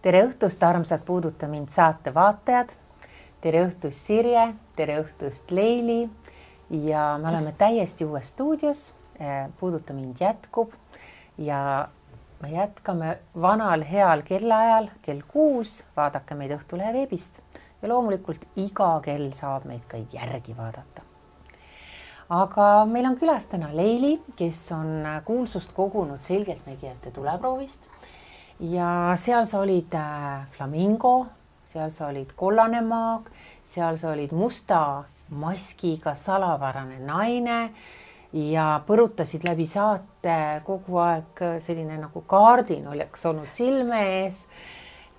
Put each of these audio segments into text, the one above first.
tere õhtust, armsad Puuduta mind saate vaatajad. Tere õhtust, Sirje, tere õhtust, Leili. Ja me oleme täiesti uues stuudios. Puuduta mind jätkub ja me jätkame vanal heal kellaajal kell 6. Vaadake meid Õhtulehe veebist ja loomulikult iga kell saab meid ka järgi vaadata. Aga meil on külas täna Leili, kes on kuulsust kogunud selgeltnägijate tuleproovist. Ja seal sa olid flamingo, seal sa olid kollane maag, seal sa olid musta maskiga salavarane naine ja põrutasid läbi saate kogu aeg selline nagu kaardin oleks olnud silme ees.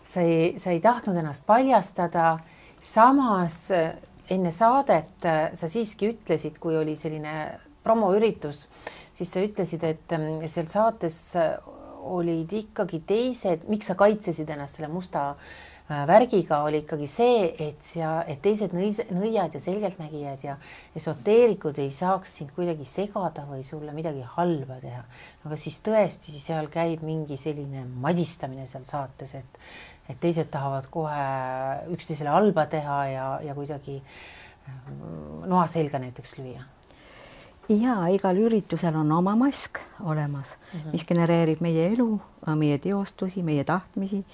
Sa ei tahtnud ennast paljastada. Samas enne saadet sa siiski ütlesid, kui oli selline promoüritus, siis sa ütlesid, et seal saates olid ikkagi teised, miks sa kaitsesid ennast selle musta värgiga, oli ikkagi see, et teised nõiad ja selgeltnägijad ja esoteerikud ei saaks sind kuidagi segada või sulle midagi halba teha. Aga siis tõesti seal käib mingi selline madistamine seal saates, et teised tahavad kohe üksteisele halba teha ja kuidagi noa selga näiteks lüüa. Ja igal üritusel on oma mask olemas, mis genereerib meie elu, meie teostusi, meie tahtmisi,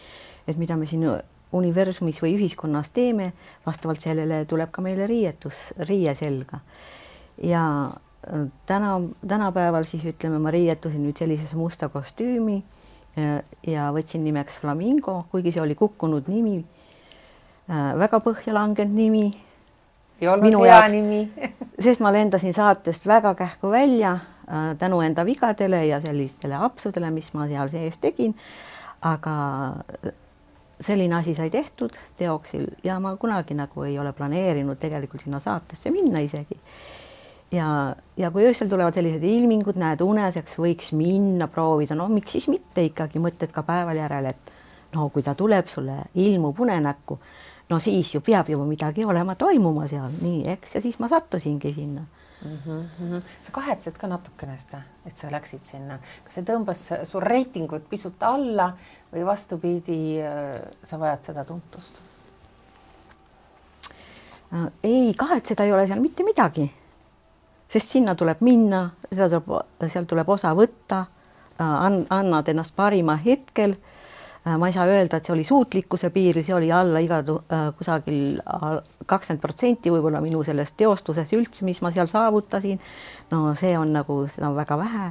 et mida me siin universumis või ühiskonnas teeme, vastavalt sellele tuleb ka meile riie selga. Ja tänapäeval siis ütleme, ma riietusin nüüd sellises musta kostüümi ja võtsin nimeks Flamingo, kuigi see oli kukkunud nimi, väga põhja langenud nimi. Ei olnud hea nimi. Sest ma lendasin saatest väga kähku välja tänu enda vigadele ja sellistele apsudele, mis ma seal sees tegin. Aga selline asi sai tehtud teoksil ja ma kunagi nagu ei ole planeerinud tegelikult sinna saatesse minna isegi. Ja kui öösel tulevad sellised ilmingud, näed uneseks, võiks minna proovida. No miks siis mitte ikkagi mõtted ka päeval järel, et no kui ta tuleb sulle ilmub unenäkku, no siis ju peab juba midagi olema toimuma seal, nii eks, ja siis ma sattusingi sinna. Sa kahetsed ka natukene seda, et sa läksid sinna. Kas see tõmbas su reitingut pisut alla või vastupidi, sa vajad seda tuntust? Ei, kahetseda ei ole seal mitte midagi, sest sinna tuleb minna, seal tuleb osa võtta, annad ennast parima hetkel. Ma ei saa öelda, et see oli suutlikkuse piiril, see oli alla kusagil 20% võib-olla minu sellest teostuses üldse, mis ma seal saavutasin. No see on nagu, seda on väga vähe,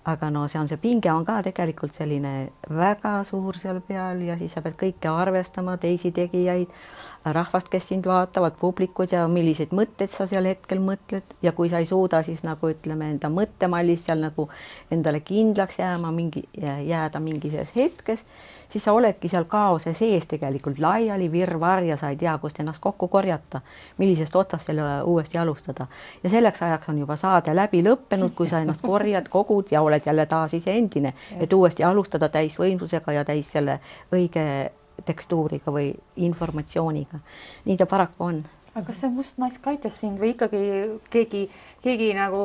aga no see pinge on ka tegelikult selline väga suur seal peal ja siis sa pead kõike arvestama, teisi tegijaid, rahvast, kes sind vaatavad, publikud ja milliseid mõtteid sa seal hetkel mõtled ja kui sa ei suuda siis nagu ütleme enda mõttemallis seal nagu endale kindlaks jääda mingises hetkes, siis sa oledki seal kaose sees tegelikult laiali virvar ja sa ei tea, kust ennast kokku korjata, millisest otsast selle uuesti alustada. Ja selleks ajaks on juba saade läbi lõppenud, kui sa ennast korjad, kogud ja oled jälle taas ise endine, et uuesti alustada täis võimsusega ja täis selle õige tekstuuriga või informatsiooniga. Nii ta paraku on. Aga kas see must mask aitas sind või ikkagi keegi nagu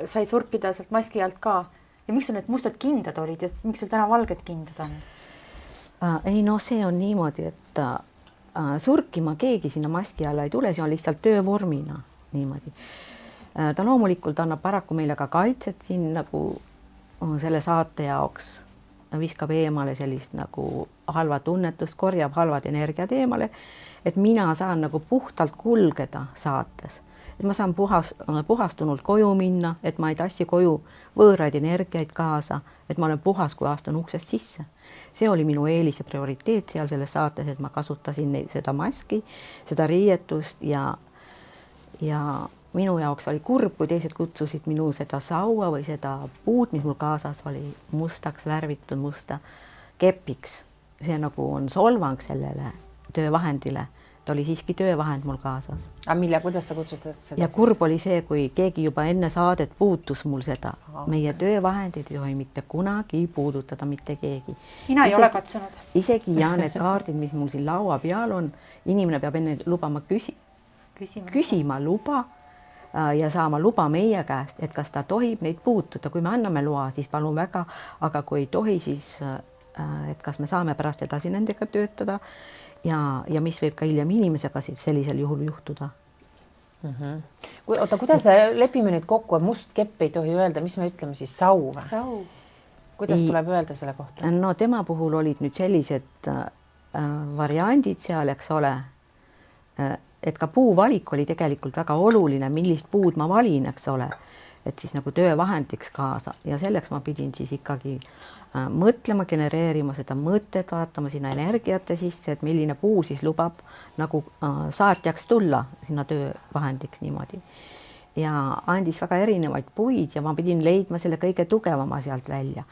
sai surkida sealt maski alt ka? Ja miks sul need mustad kindad olid ja miks sul täna valged kindad on? Ei, no see on niimoodi, et surkima keegi sinna maski alla ei tule, see on lihtsalt töövormina niimoodi. Ta loomulikult annab paraku meile ka kaitset siin nagu selle saate jaoks, viskab eemale sellist nagu halva tunnetust, korjab halvad energiad eemale, et mina saan nagu puhtalt kulgeda saates. Et ma saan puhastunult koju minna, et ma ei tassi koju võõraid energiaid kaasa, et ma olen puhas, kui astun uksest sisse. See oli minu eelis ja prioriteet seal selles saates, et ma kasutasin seda maski, seda riietust ja minu jaoks oli kurb, kui teised kutsusid minu seda saua või seda puud, mis mul kaasas oli mustaks värvitud musta kepiks. See nagu on solvang sellele töövahendile. Ta oli siiski töövahend mul kaasas. Aga kuidas sa kutsutad seda? Ja kurb oli see, kui keegi juba enne saadet puutus mul seda. Meie töövahendid ei tohi mitte kunagi puudutada mitte keegi. Mina ei ole katsunud. Isegi ja need kaardid, mis mul siin laua peal on, inimene peab enne lubama küsima luba ja saama luba meie käest, et kas ta tohib neid puutuda. Kui me anname loa, siis palun väga, aga kui ei tohi, siis et kas me saame pärast edasi nendega töötada ja mis võib ka hiljem inimesega siis sellisel juhul juhtuda. Oota, kuidas lepime nüüd kokku, et must kepp ei tohi öelda, mis me ütleme siis, sau või? Sau. Kuidas tuleb öelda selle kohta? No tema puhul olid nüüd sellised variandid seal, eks ole, et ka puuvalik oli tegelikult väga oluline, millist puud ma valin, eks ole, et siis nagu töövahendiks kaasa ja selleks ma pidin siis ikkagi mõtlema, genereerima seda mõtet, vaatama sinna energiate sisse, et milline puu siis lubab nagu saatjaks tulla sinna töövahendiks niimoodi. Ja andis väga erinevaid puid ja ma pidin leidma selle kõige tugevama sealt välja.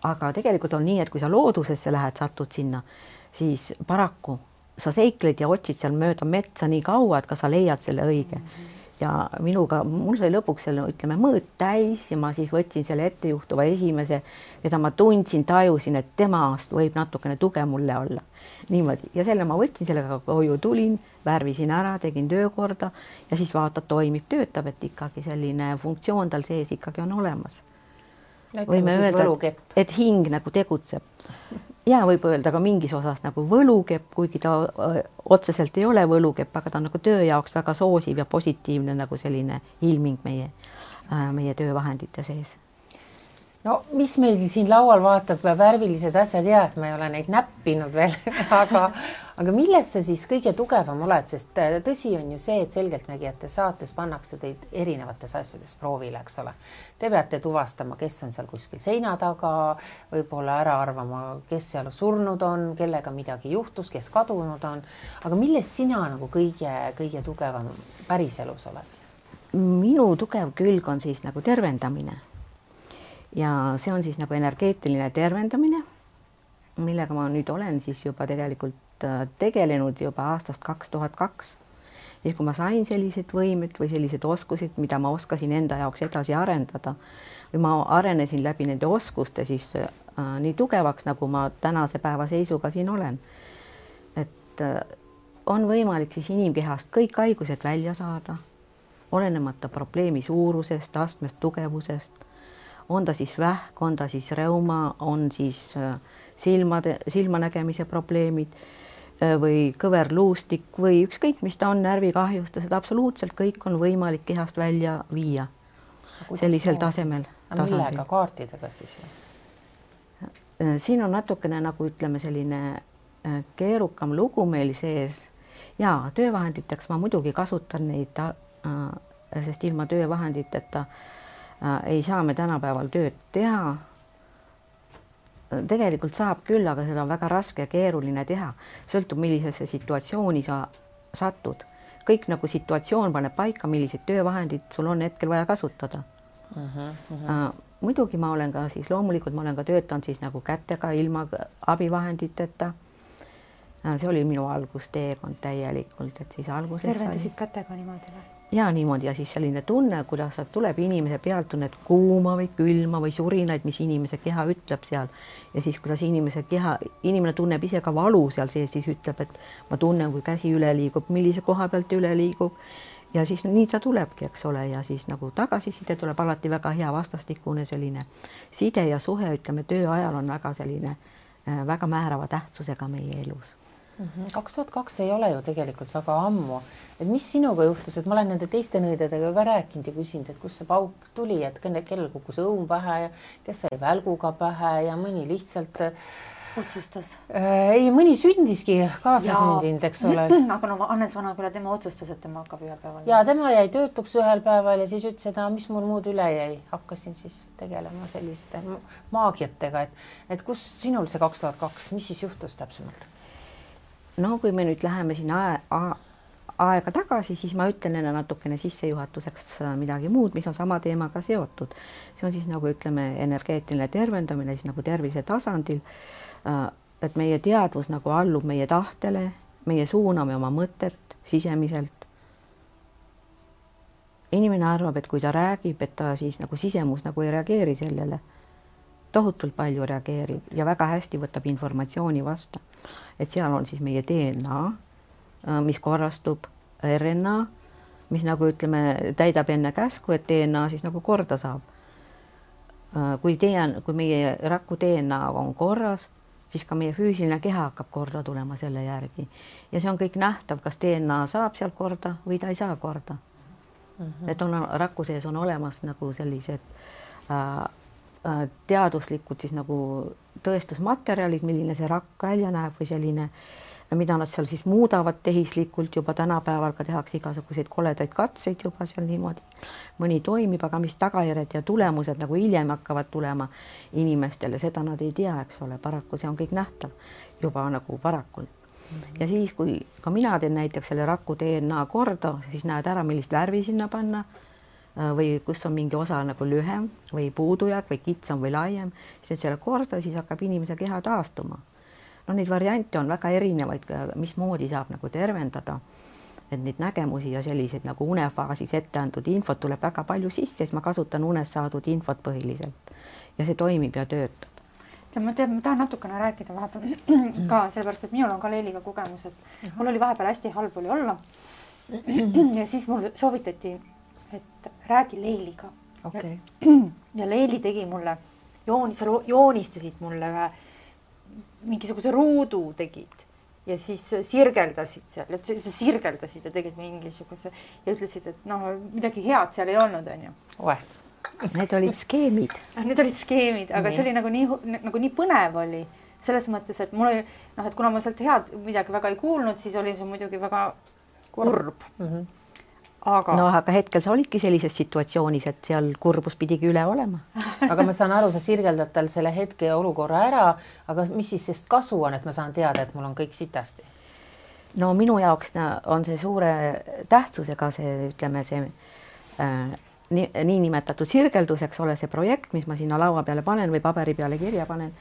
Aga tegelikult on nii, et kui sa loodusesse lähed, satud sinna, siis paraku sa seikled ja otsid seal mööda metsa nii kaua, et ka sa leiad selle õige. Ja mul sai lõpuks selle, ütleme, mõõt täis ja ma siis võtsin selle ettejuhtuva esimese, keda ma tundsin, tajusin, et temast võib natukene tuge mulle olla. Niimoodi. Ja selle ma võtsin, sellega koju tulin, värvisin ära, tegin töökorda ja siis vaatad, toimib, töötab, et ikkagi selline funktsioon tal sees ikkagi on olemas. Võime öelda, et hing nagu tegutseb. Ja võib öelda ka mingis osas nagu võlukepp, kuigi ta otseselt ei ole võlukepp, aga ta on nagu töö jaoks väga soosiv ja positiivne nagu selline ilming meie töövahendite sees. No mis meil siin laual vaatab värvilised asjad, et ma ei ole neid näppinud veel, aga milles sa siis kõige tugevam oled, sest tõsi on ju see, et selgeltnägijate saates pannakse teid erinevates asjades proovile, eks ole. Te peate tuvastama, kes on seal kuskil seina taga, võib-olla ära arvama, kes seal surnud on, kellega midagi juhtus, kes kadunud on, aga milles sina nagu kõige tugevam päriselus oled? Minu tugev külg on siis nagu tervendamine. Ja see on siis nagu energeetiline tervendamine, millega ma nüüd olen siis juba tegelikult tegelenud juba aastast 2002. Ja kui ma sain sellised võimed või sellised oskused, mida ma oskasin enda jaoks edasi arendada või ma arenesin läbi nende oskuste siis nii tugevaks, nagu ma tänase päeva seisuga siin olen. Et on võimalik siis inimkehast kõik haigused välja saada, olenemata probleemi suurusest, astmest, tugevusest. On ta siis vähk, on ta siis reuma, on siis silmanägemise probleemid või kõverluustik või ükskõik, mis ta on, närvikahjustused, absoluutselt kõik on võimalik kehast välja viia sellisel tasemel. Millega kaartidega siis? Siin on natukene nagu ütleme selline keerukam lugu meil sees ja töövahenditeks ma muidugi kasutan neid, sest ilma töövahenditeta ei saa me tänapäeval tööd teha. Tegelikult saab küll, aga seda on väga raske ja keeruline teha. Sõltub, millisesse situatsiooni sa satud. Kõik nagu situatsioon paneb paika, millised töövahendid sul on hetkel vaja kasutada. Muidugi ma olen ka siis, loomulikult ma olen ka töötanud siis nagu kätega ilma abivahenditeta. See oli minu algusteekond täielikult, et siis alguses tervendasid kätega niimoodi või? Ja niimoodi ja siis selline tunne, kuidas tuleb inimese pealt tunned kuuma või külma või surinaid, mis inimese keha ütleb seal. Ja siis kuidas inimene tunneb ise ka valu seal sees, siis ütleb, et ma tunnen, kui käsi üle liigub, millise koha pealt üle liigub. Ja siis nii ta tulebki, eks ole, ja siis nagu tagasiside tuleb alati väga hea vastastikune selline side ja suhe, ütleme, töö ajal on väga selline väga määrava tähtsusega meie elus. 2002 ei ole ju tegelikult väga ammu. Et mis sinuga juhtus, et ma olen nende teiste nõidadega ka rääkinud ja küsinud, et kus see pauk tuli, et kellel kukkus õun pähe ja kes sai välguga pähe ja mõni lihtsalt otsustas. Ei, mõni sündiski kaasasündinud, eks ole. Aga no Hannes Vanaküla, tema otsustas, et tema hakkab ühel päeval. Ja tema jäi töötuks ühel päeval ja siis ütles, et mis mul muud üle jäi. Hakkasin siis tegelema selliste maagiatega, et kus sinul see 2002, mis siis juhtus täpsemalt? No kui me nüüd läheme siin aega tagasi, siis ma ütlen enne natukene sissejuhatuseks midagi muud, mis on sama teemaga seotud. See on siis nagu ütleme energeetiline tervendamine siis nagu tervise tasandil, et meie teadvus nagu allub meie tahtele, meie suuname oma mõtet sisemiselt. Inimene arvab, et kui ta räägib, et ta siis nagu sisemus nagu ei reageeri sellele. Tohutult palju reageerib ja väga hästi võtab informatsiooni vasta. Et seal on siis meie DNA, mis korrastub, RNA, mis nagu ütleme, täidab enne käsku, et DNA siis nagu korda saab. Kui meie raku DNA on korras, siis ka meie füüsiline keha hakkab korda tulema selle järgi. Ja see on kõik nähtav, kas DNA saab sealt korda või ta ei saa korda. Et on raku sees on olemas nagu sellised teaduslikud siis nagu tõestusmaterjalid, milline see rakk välja näeb või selline, mida nad seal siis muudavad tehislikult, juba tänapäeval ka tehakse igasuguseid koledaid katseid juba seal niimoodi. Mõni toimib, aga mis tagajärjed ja tulemused nagu hiljem hakkavad tulema inimestele, seda nad ei tea, eks ole, paraku see on kõik nähtav juba nagu parakult. Ja siis, kui ka mina teen näiteks selle raku DNA korda, siis näed ära, millist värvi sinna panna või kus on mingi osa nagu lühem või puudujääk või kitsam või laiem, siis selle korda, siis hakkab inimese keha taastuma. No neid variante on väga erinevaid, mismoodi saab nagu tervendada, et neid nägemusi ja selliseid nagu unefaasis ette antud infot tuleb väga palju sisse, siis ma kasutan unes saadud infot põhiliselt ja see toimib ja töötab. Ja ma tahan natukene rääkida vahepeal ka, sellepärast, et minul on ka Leiliga kogemus, et mul oli vahepeal hästi halb oli olla ja siis mul soovitati, et räägi Leiliga. Okay. Ja Leili tegi mulle, joonistasid mulle mingisuguse ruudu tegid ja siis sirgeldasid seal, et sa sirgeldasid ja tegid mingisuguse ja ütlesid, et noh, midagi head seal ei olnud, on ju. Need olid skeemid. Need olid skeemid, aga see oli nagu nii põnev oli. Selles mõttes, et mul oli, et kuna ma sealt head midagi väga ei kuulnud, siis oli see muidugi väga kurb. Aga hetkel sa olidki sellises situatsioonis, et seal kurbus pidigi üle olema. Aga ma saan aru, sa sirgeldad tal selle hetke ja olukorra ära, aga mis siis sest kasu on, et ma saan teada, et mul on kõik sitasti? No minu jaoks on see suure tähtsusega see, ütleme, see nii nimetatud sirgeldus, eks ole, see projekt, mis ma sinna laua peale panen või paberi peale kirja panen.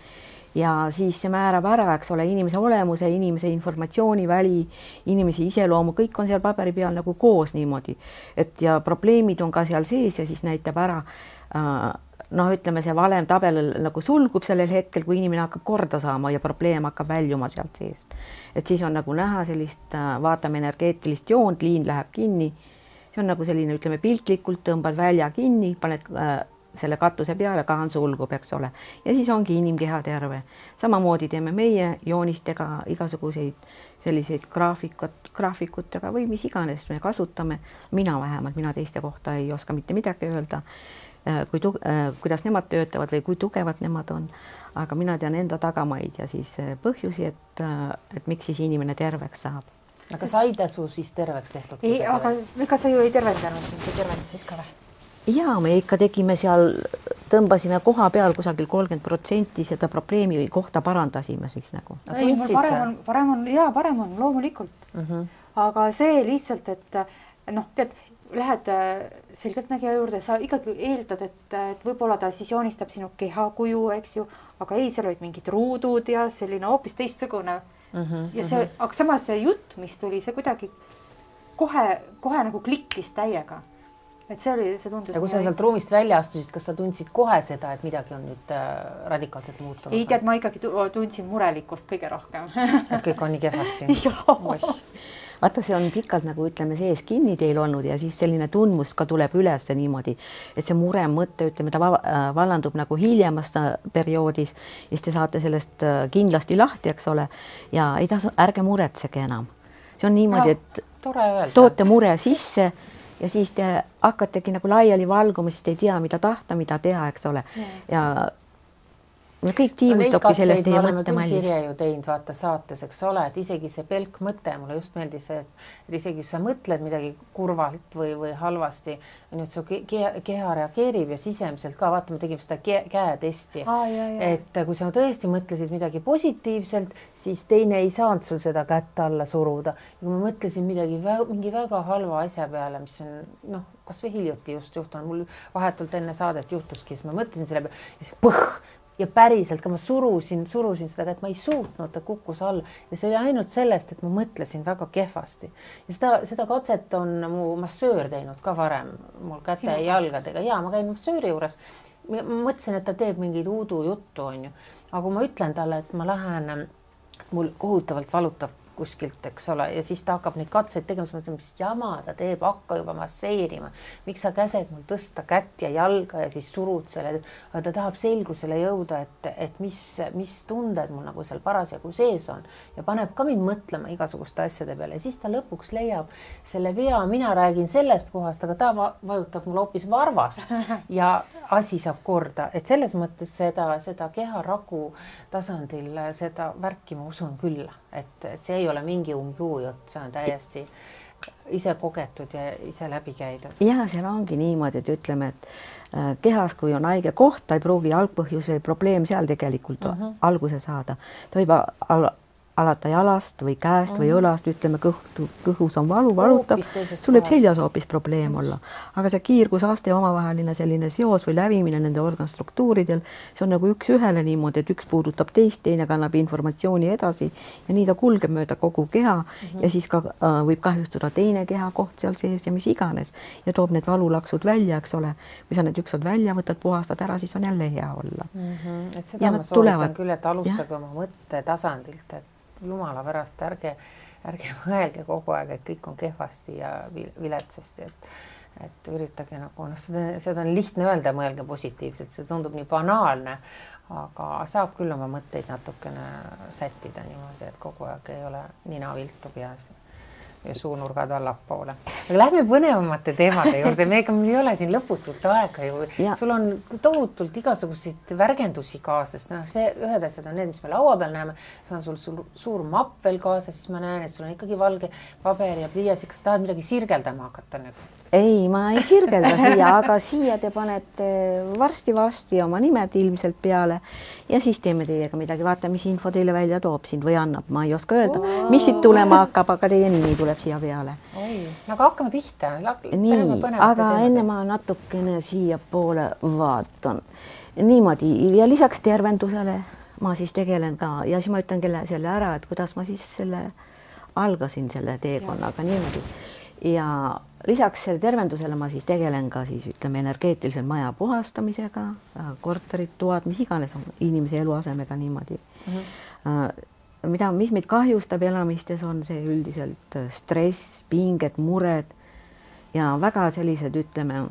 Ja siis see määrab ära, eks ole, inimese olemuse, inimese informatsiooniväli, inimese iseloomu, kõik on seal paberi peal nagu koos niimoodi. Et ja probleemid on ka seal sees ja siis näitab ära, ütleme, see valem tabel nagu sulgub sellel hetkel, kui inimene hakkab korda saama ja probleem hakkab väljuma sealt seest. Et siis on nagu näha sellist, vaatame energeetilist joont, liin läheb kinni. See on nagu selline, ütleme, piltlikult tõmbad välja kinni, paned selle katuse peale, kaan sulgub, eks ole. Ja siis ongi inimkeha terve. Samamoodi teeme meie joonistega igasuguseid selliseid graafikutega või mis iganes me kasutame. Mina vähemalt, mina teiste kohta ei oska mitte midagi öelda, kuidas nemad töötavad või kui tugevad nemad on. Aga mina tean enda tagamaid ja siis põhjusi, et miks siis inimene terveks saab. Aga saida su siis terveks tehtud? Ei, aga ega sa ju ei tervendanud, sa tervendasid ka või? Ja me ikka tegime seal, tõmbasime koha peal kusagil 30% seda probleemi kohta parandasime siis nagu. Ei, parem on loomulikult. Aga see lihtsalt, et tead, lähed selgeltnägija juurde, sa ikkagi eeldad, et võib-olla ta siis joonistab sinu kehakuju, eks ju, aga ei, seal olid mingid ruudud ja selline hoopis teistsugune. Ja see, aga samas see jutt, mis tuli, see kuidagi kohe nagu klikkis täiega. Et see tundus. Ja kui sa sealt ruumist välja astusid, kas sa tundsid kohe seda, et midagi on nüüd radikaalselt muutunud? Ei tead, ma ikkagi tundsin murelikkust kõige rohkem. Et kõik on nii kehvasti. Vaata, see on pikalt nagu ütleme sees kinni teil olnud ja siis selline tundmus ka tuleb üles niimoodi, et see mure mõte, ütleme, ta vallandub nagu hiljemas perioodis ja siis te saate sellest kindlasti lahti, eks ole, ja ei tasu, ärge muretsege enam. See on niimoodi, et toote mure sisse ja siis te hakkategi nagu laiali valguma, siis te ei tea, mida tahta, mida teha, eks ole. Ja kõik tiimustobki sellest teie mõttemallist. Sirje ju teinud vaata saates, eks ole, et isegi see pelk mõte, mulle just meeldis, et isegi kui sa mõtled midagi kurvalt või halvasti, nüüd su keha reageerib ja sisemiselt ka, vaata, me tegime seda käetesti, et kui sa tõesti mõtlesid midagi positiivselt, siis teine ei saanud sul seda kätt alla suruda. Ja kui ma mõtlesin mingi väga halva asja peale, mis on, kas või hiljuti just juhtunud, mul vahetult enne saadet juhtuski, siis ma mõtlesin selle peale ja siis põh! Ja päriselt ka ma surusin seda, et ma ei suutnud, ta kukkus all. Ja see oli ainult sellest, et ma mõtlesin väga kehvasti. Ja seda katset on mu massöör teinud ka varem, mul käte ja jalgadega. Ja ma käin massööri juures. Ma mõtlesin, et ta teeb mingid uudu juttu, on ju. Aga kui ma ütlen talle, et ma lähen, mul kohutavalt valutab kuskilt, eks ole, ja siis ta hakkab neid katseid tegema, siis mõtleme, mis jama ta teeb, hakka juba masseerima. Miks sa käsed mul tõsta kätt ja jalga ja siis surud selle, aga ta tahab selgusele jõuda, et mis tunded mul nagu seal parasjagu sees on ja paneb ka mind mõtlema igasuguste asjade peale ja siis ta lõpuks leiab selle vea, mina räägin sellest kohast, aga ta vajutab mul hoopis varvast ja asi saab korda, et selles mõttes seda keharaku tasandil seda värki ma usun küll, et see ei ole mingi umbluujutt, see on täiesti ise kogetud ja ise läbi käidud. Ja seal ongi niimoodi, et ütleme, et kehas, kui on haige koht, ta ei pruugi algpõhjus või probleem seal tegelikult alguse saada. Ta võib alata jalast või käest või õlast, ütleme kõhus on valutab, tuleb seljas hoopis probleem olla. Aga see kiirgusaste omavaheline selline seos või lävimine nende organstruktuuridel, see on nagu üks ühele niimoodi, et üks puudutab teist, teine kannab informatsiooni edasi ja nii ta kulgeb mööda kogu keha ja siis ka võib kahjustada teine kehakoht seal sees ja mis iganes ja toob need valulaksud välja, eks ole. Kui sa need ükskord välja võtad, puhastad ära, siis on jälle hea olla. Et seda ma soovitan küll, et alustage oma mõtte tasandilt, et jumala pärast, ärge mõelge kogu aeg, et kõik on kehvasti ja viletsasti, et üritage nagu, seda on lihtne öelda, mõelge positiivselt, see tundub nii banaalne, aga saab küll oma mõtteid natukene sättida niimoodi, et kogu aeg ei ole nina viltu peas ja suunurgad allapoole. Aga lähme põnevamate teemade juurde, meil ei ole siin lõputult aega ju. Sul on tohutult igasuguseid värgendusi kaasas. See ühed asjad on need, mis me laua peal näeme. See on sul suur mapp veel kaasas, siis ma näen, et sul on ikkagi valge paber ja pliiats. Kas tahad midagi sirgeldama hakata nüüd? Ei, ma ei sirgelda siia, aga siia te panete varsti oma nimed ilmselt peale ja siis teeme teiega midagi. Vaata, mis info teile välja toob sind või annab. Ma ei oska öelda, mis siit tulema hakkab, aga teie nimi tuleb siia peale. Aga hakkame pihta. Nii, aga enne ma natukene siia poole vaatan. Niimoodi ja lisaks tervendusele ma siis tegelen ka ja siis ma ütlen selle ära, et kuidas ma siis algasin selle teekonnaga niimoodi. Ja lisaks selle tervendusele ma siis tegelen ka siis ütleme energeetilisel maja puhastamisega, korterid, toad, mis iganes on inimese eluasemega niimoodi. Mis meid kahjustab elamistes on see üldiselt stress, pinged, mured ja väga sellised ütleme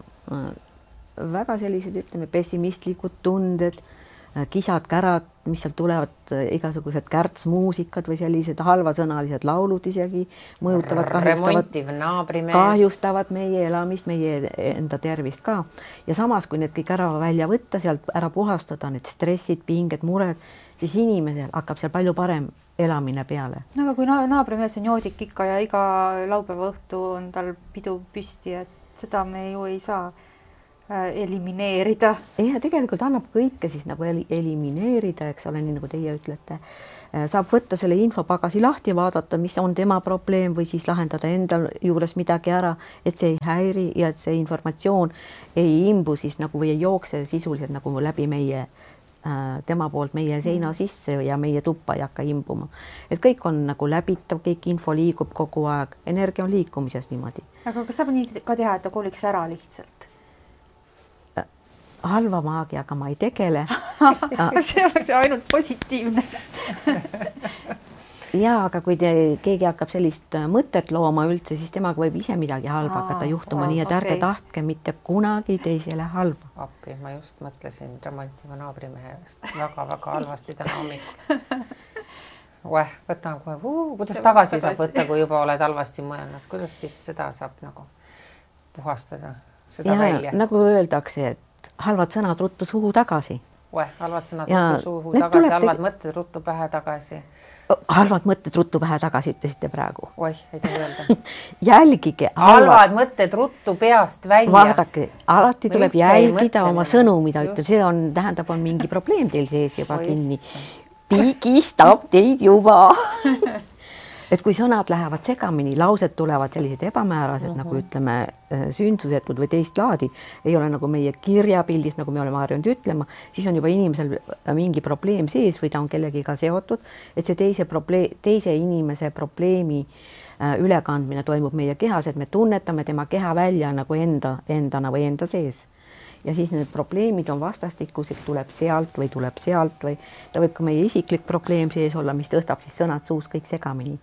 pessimistlikud tunded, kisad, kärad, mis sealt tulevad, igasugused kärtsmuusikad või sellised halvasõnalised laulud isegi mõjutavad, kahjustavad meie elamist, meie enda tervist ka. Ja samas, kui need kõik ära välja võtta, sealt ära puhastada, need stressid, pinged, mured, siis inimesel hakkab seal palju parem elamine peale. No, aga kui naabrimees on joodik ikka ja iga laupäeva õhtu on tal pidu püsti, et seda me ju ei saa elimineerida. Ja tegelikult annab kõike siis nagu elimineerida, eks ole, nii nagu teie ütlete. Saab võtta selle infopagasi lahti, vaadata, mis on tema probleem või siis lahendada enda juures midagi ära, et see ei häiri ja et see informatsioon ei imbu siis nagu või ei jookse sisuliselt nagu läbi tema poolt meie seina sisse ja meie tuppa ei hakka imbuma. Et kõik on nagu läbitav, kõik info liigub kogu aeg, energia on liikumises niimoodi. Aga kas saab nii ka teha, et ta koliks ära lihtsalt? Halva maagiaga ma ei tegele. See oleks ainult positiivne. Ja, aga kui keegi hakkab sellist mõtet looma üldse, siis temaga võib ise midagi halba hakata juhtuma, nii et ärge tahtke mitte kunagi teisele halba. Appi, ma just mõtlesin remontiva naabrimehest väga-väga halvasti täna hommikul. Võtan kohe, kuidas tagasi saab võtta, kui juba oled halvasti mõelnud, kuidas siis seda saab nagu puhastada, seda välja? Nagu öeldakse, et halvad sõnad ruttu suhu tagasi. Halvad sõnad ruttu suhu tagasi, halvad mõtted ruttu pähe tagasi. Halvad mõtted ruttu pähe tagasi, ütlesite praegu. Ei taha öelda. Jälgige. Halvad mõtted ruttu peast välja. Vaadake, alati tuleb jälgida oma sõnu, mida ütleb. See tähendab, on mingi probleem teil sees juba kinni. Pigistab teid juba. Et kui sõnad lähevad segamini, laused tulevad sellised ebamäärased, nagu ütleme sündsusetud või teist laadi, ei ole nagu meie kirjapildis, nagu me oleme harjunud ütlema, siis on juba inimesel mingi probleem sees või ta on kellegiga seotud, et see teise inimese probleemi ülekandmine toimub meie kehas, et me tunnetame tema keha välja nagu endana või enda sees. Ja siis need probleemid on vastastikused, tuleb sealt või ta võib ka meie isiklik probleem sees olla, mis tõstab siis sõnad suus kõik segamini.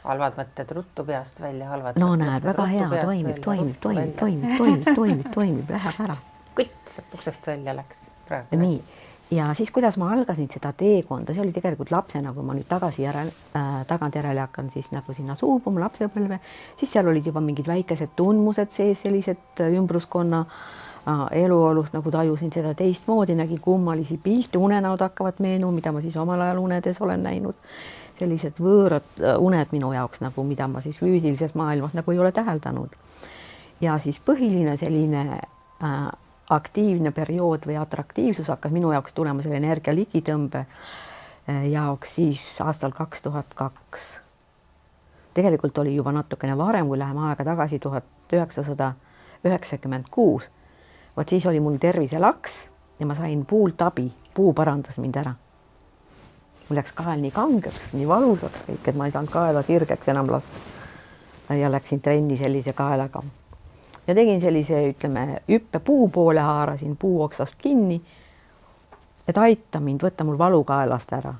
halvad mõtted ruttu peast välja, halvad no mõtted näed, väga hea, toimib, läheb ära. Kutt sealt uksest välja läks praegu. Nii, ja siis kuidas ma algasin seda teekonda, see oli tegelikult lapsena, kui ma nüüd tagantjärele hakkan siis nagu sinna suubuma lapsepõlve, siis seal olid juba mingid väikesed tundmused sees, sellised ümbruskonna eluolust, nagu tajusin seda teistmoodi, nägin kummalisi pilte, unenäod hakkavad meenu, mida ma siis omal ajal unedes olen näinud, sellised võõrad uned minu jaoks, nagu mida ma siis füüsilises maailmas nagu ei ole täheldanud. Ja siis põhiline selline aktiivne periood või atraktiivsus hakkas minu jaoks tulema selle energia ligitõmbe jaoks siis aastal 2002. Tegelikult oli juba natukene varem, kui läheme aega tagasi 1996. Vot siis oli mul terviselaks ja ma sain puult abi, puu parandas mind ära. Mul läks kael nii kangeks, nii valusaks kõik, et ma ei saanud kaela sirgeks enam lasta. Ja läksin trenni sellise kaelaga. Ja tegin sellise, ütleme, hüppe puu poole, haarasin puu oksast kinni, et aita mind, võtta mul valu kaelast ära.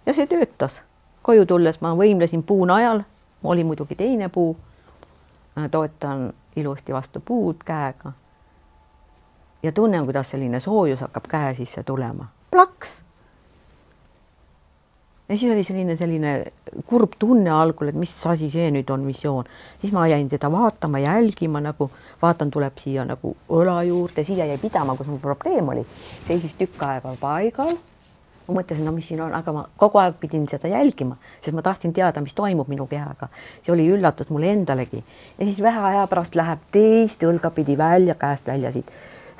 Ja see töötas. Koju tulles ma võimlesin puu najal, oli muidugi teine puu, toetan ilusti vastu puud käega. Ja tunnen, kuidas selline soojus hakkab käe sisse tulema. Plaks! Ja siis oli selline kurb tunne algul, et mis asi see nüüd on visioon. Siis ma jäin seda vaatama, jälgima, nagu vaatan, tuleb siia nagu õla juurde, siia jäi pidama, kus mul probleem oli. Seisis tükk aega paigal. Ma mõtlesin, no mis siin on, aga ma kogu aeg pidin seda jälgima, sest ma tahtsin teada, mis toimub minu kehaga. See oli üllatus mulle endalegi. Ja siis vähe aja pärast läheb teist õlgapidi välja, käest välja siit.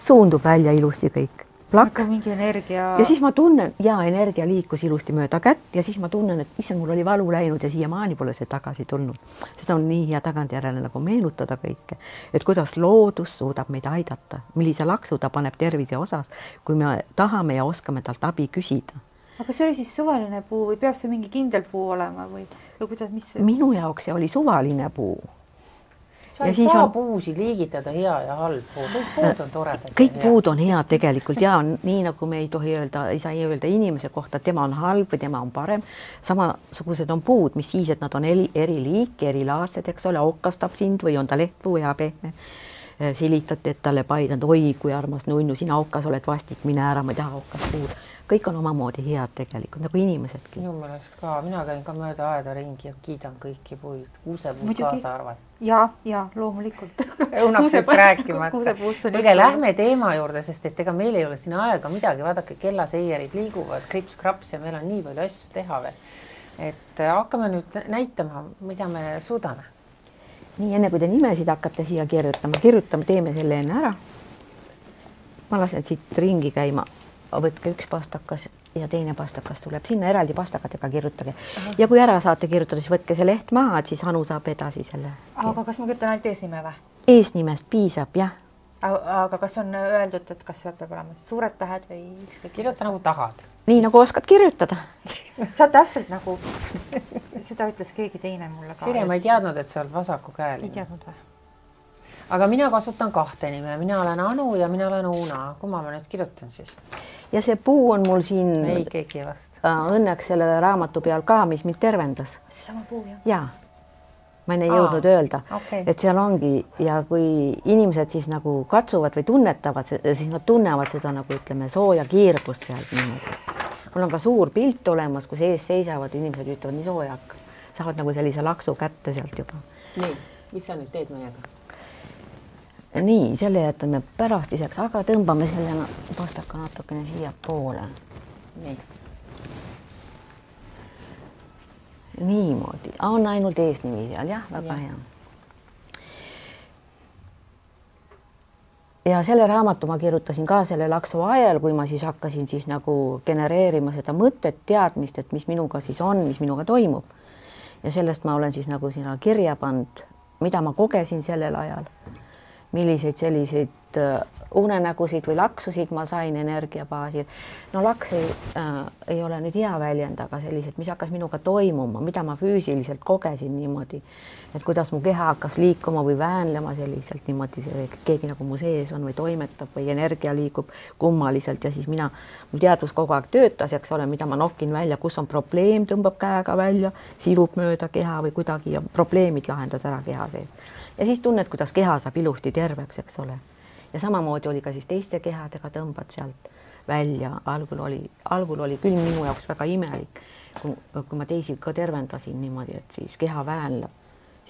Suundub välja ilusti kõik. Plaks. Mingi energia. Ja siis ma tunnen, energia liikus ilusti mööda kätt ja siis ma tunnen, et issand, mul oli valu läinud ja siiamaani pole see tagasi tulnud. Seda on nii hea tagantjärele nagu meenutada kõike, et kuidas loodus suudab meid aidata, millise laksu ta paneb tervise osas, kui me tahame ja oskame talt abi küsida. Aga see oli siis suvaline puu või peab see mingi kindel puu olema või kuidas, mis see? Minu jaoks see oli suvaline puu. Sa ei saa puusi liigitada hea ja halb puu. Kõik puud on toredad. Kõik puud on head tegelikult ja nii nagu me ei tohi öelda, ei saa öelda inimese kohta, tema on halb või tema on parem. Samasugused on puud, mis siis, et nad on eri liiki, erilaadsed, eks ole, okkastab sind või on ta lehtpuu ja pehme. Silitate, et talle paidanud, oi kui armas nunnu, sina okkas oled vastik, mine ära, ma ei taha okkas puud. Kõik on omamoodi head tegelikult, nagu inimesedki. Minu meelest ka, mina käin ka mööda aeda ringi ja kiidan kõiki puid, kuusepuud kaasa arvad. Ja, loomulikult. Õunaksest rääkimata. Õige, lähme teema juurde, sest et ega meil ei ole siin aega midagi, vaadake, kellaseierid liiguvad, krips-kraps ja meil on nii palju asju teha veel. Et hakkame nüüd näitama, mida me suudame. Nii, enne kui te nimesid hakkate siia kirjutama, teeme selle enne ära. Ma lasen siit ringi käima. Võtke üks pastakas ja teine pastakas tuleb sinna, eraldi pastakatega kirjutage. Ja kui ära saate kirjutada, siis võtke see leht maha, et siis Anu saab edasi selle. Aga kas ma kirjutan ainult eesnime või? Eesnimest piisab, jah. Aga kas on öeldud, et kas peab olema suured tähed või ükskõik? Kirjuta nagu tahad. Nii nagu oskad kirjutada. Sa täpselt nagu, seda ütles keegi teine mulle ka. Sirje, ma ei teadnud, et sa oled vasaku käel. Ei teadnud või? Aga mina kasutan kahte nime, mina olen Anu ja mina olen Uuna. Kumma ma nüüd kirjutan siis? Ja see puu on mul siin ei, keegi vast. Õnneks selle raamatu peal ka, mis mind tervendas. See sama puu, jah? Jaa. Ma ei jõudnud öelda, et seal ongi ja kui inimesed siis nagu katsuvad või tunnetavad, siis nad tunnevad seda nagu ütleme sooja kiirgust sealt niimoodi. Mul on ka suur pilt olemas, kus ees seisavad inimesed ütlevad nii soojak. Saavad nagu sellise laksu kätte sealt juba. Nii, mis sa nüüd teed meiega? Nii, selle jätame pärast iseks, aga tõmbame selle pastaka natukene siia poole. Nii. Niimoodi. On ainult eesnimi seal, jah, väga hea. Ja selle raamatu ma kirjutasin ka selle laksu ajal, kui ma siis hakkasin siis nagu genereerima seda mõtet, teadmist, et mis minuga siis on, mis minuga toimub. Ja sellest ma olen siis nagu sinna kirja pannud, mida ma kogesin sellel ajal. Milliseid selliseid unenägusid või laksusid ma sain energia baasil. No laks ei ole nüüd hea väljend, aga sellised, mis hakkas minuga toimuma, mida ma füüsiliselt kogesin niimoodi, et kuidas mu keha hakkas liikuma või väänlema selliselt niimoodi, keegi nagu mu sees on või toimetab või energia liigub kummaliselt ja siis mul teadvus kogu aeg töötas, eks ole, mida ma nokkin välja, kus on probleem, tõmbab käega välja, silub mööda keha või kuidagi ja probleemid lahendas ära keha sees. Ja siis tunned, kuidas keha saab ilusti terveks, eks ole. Ja samamoodi oli ka siis teiste kehadega, tõmbad sealt välja. Algul oli küll minu jaoks väga imelik, kui ma teisi ka tervendasin niimoodi, et siis keha väänleb.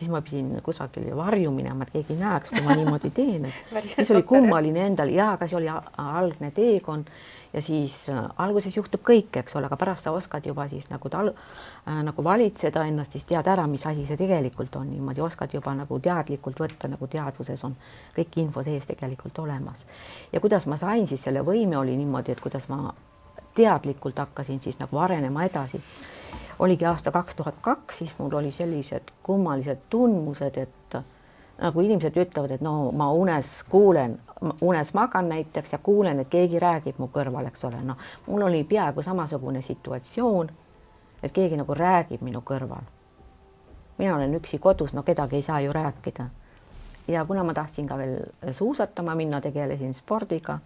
Siis ma pidin kusagil varju minema, et keegi näeks, kui ma niimoodi teen. Siis oli kummaline endal ja aga see oli algne teekond ja siis alguses juhtub kõik, eks ole, aga pärast sa oskad juba siis nagu valitseda ennast, siis tead ära, mis asi see tegelikult on. Niimoodi oskad juba nagu teadlikult võtta, nagu teadvuses on kõik info sees tegelikult olemas. Ja kuidas ma sain siis selle võime oli niimoodi, et kuidas ma teadlikult hakkasin siis nagu arenema edasi. Oligi aasta 2002, siis mul oli sellised kummalised tundmused, et nagu inimesed ütlevad, et no ma unes magan näiteks ja kuulen, et keegi räägib mu kõrval, eks ole. No, mul oli peaaegu samasugune situatsioon, et keegi nagu räägib minu kõrval. Mina olen üksi kodus, no kedagi ei saa ju rääkida. Ja kuna ma tahtsin ka veel suusatama minna, tegelesin spordiga,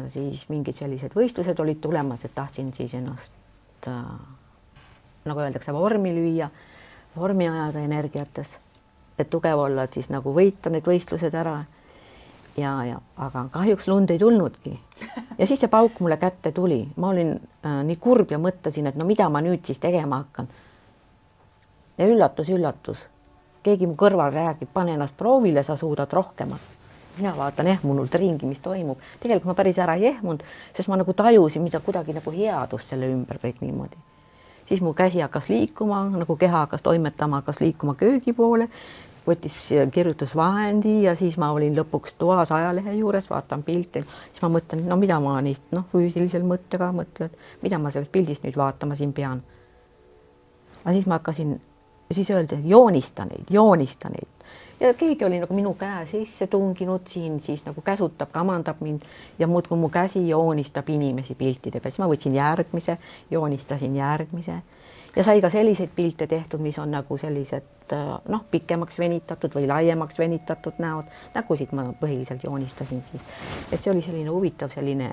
siis mingid sellised võistlused olid tulemas, et tahtsin siis ennast nagu öeldakse, vormi lüüa, vormi ajada energiates, et tugev olla, et siis nagu võita need võistlused ära. Aga kahjuks lund ei tulnudki. Ja siis see pauk mulle kätte tuli. Ma olin nii kurb ja mõtlesin, et no mida ma nüüd siis tegema hakkan. Ja üllatus. Keegi mu kõrval räägib, pane ennast proovile, sa suudad rohkemat. Mina vaatan ehmunult ringi, mis toimub. Tegelikult ma päris ära ei ehmunud, sest ma nagu tajusin, mida kuidagi nagu headust selle ümber kõik niimoodi. Siis mu käsi hakkas liikuma, nagu keha hakkas toimetama, hakkas liikuma köögi poole, võttis kirjutusvahendi ja siis ma olin lõpuks toas ajalehe juures, vaatan pilti, siis ma mõtlen, no mida ma neist füüsilisel mõttega mõtlen, mida ma sellest pildist nüüd vaatama siin pean. Aga siis ma hakkasin, siis öelda, joonista neid. Ja keegi oli nagu minu käe sisse tunginud siin, siis nagu käsutab, kamandab mind ja muudkui mu käsi joonistab inimesi piltide peal. Siis ma võtsin järgmise, joonistasin järgmise ja sai ka selliseid pilte tehtud, mis on nagu sellised pikemaks venitatud või laiemaks venitatud näod. Nägusid ma põhiliselt joonistasin siis. Et see oli selline huvitav selline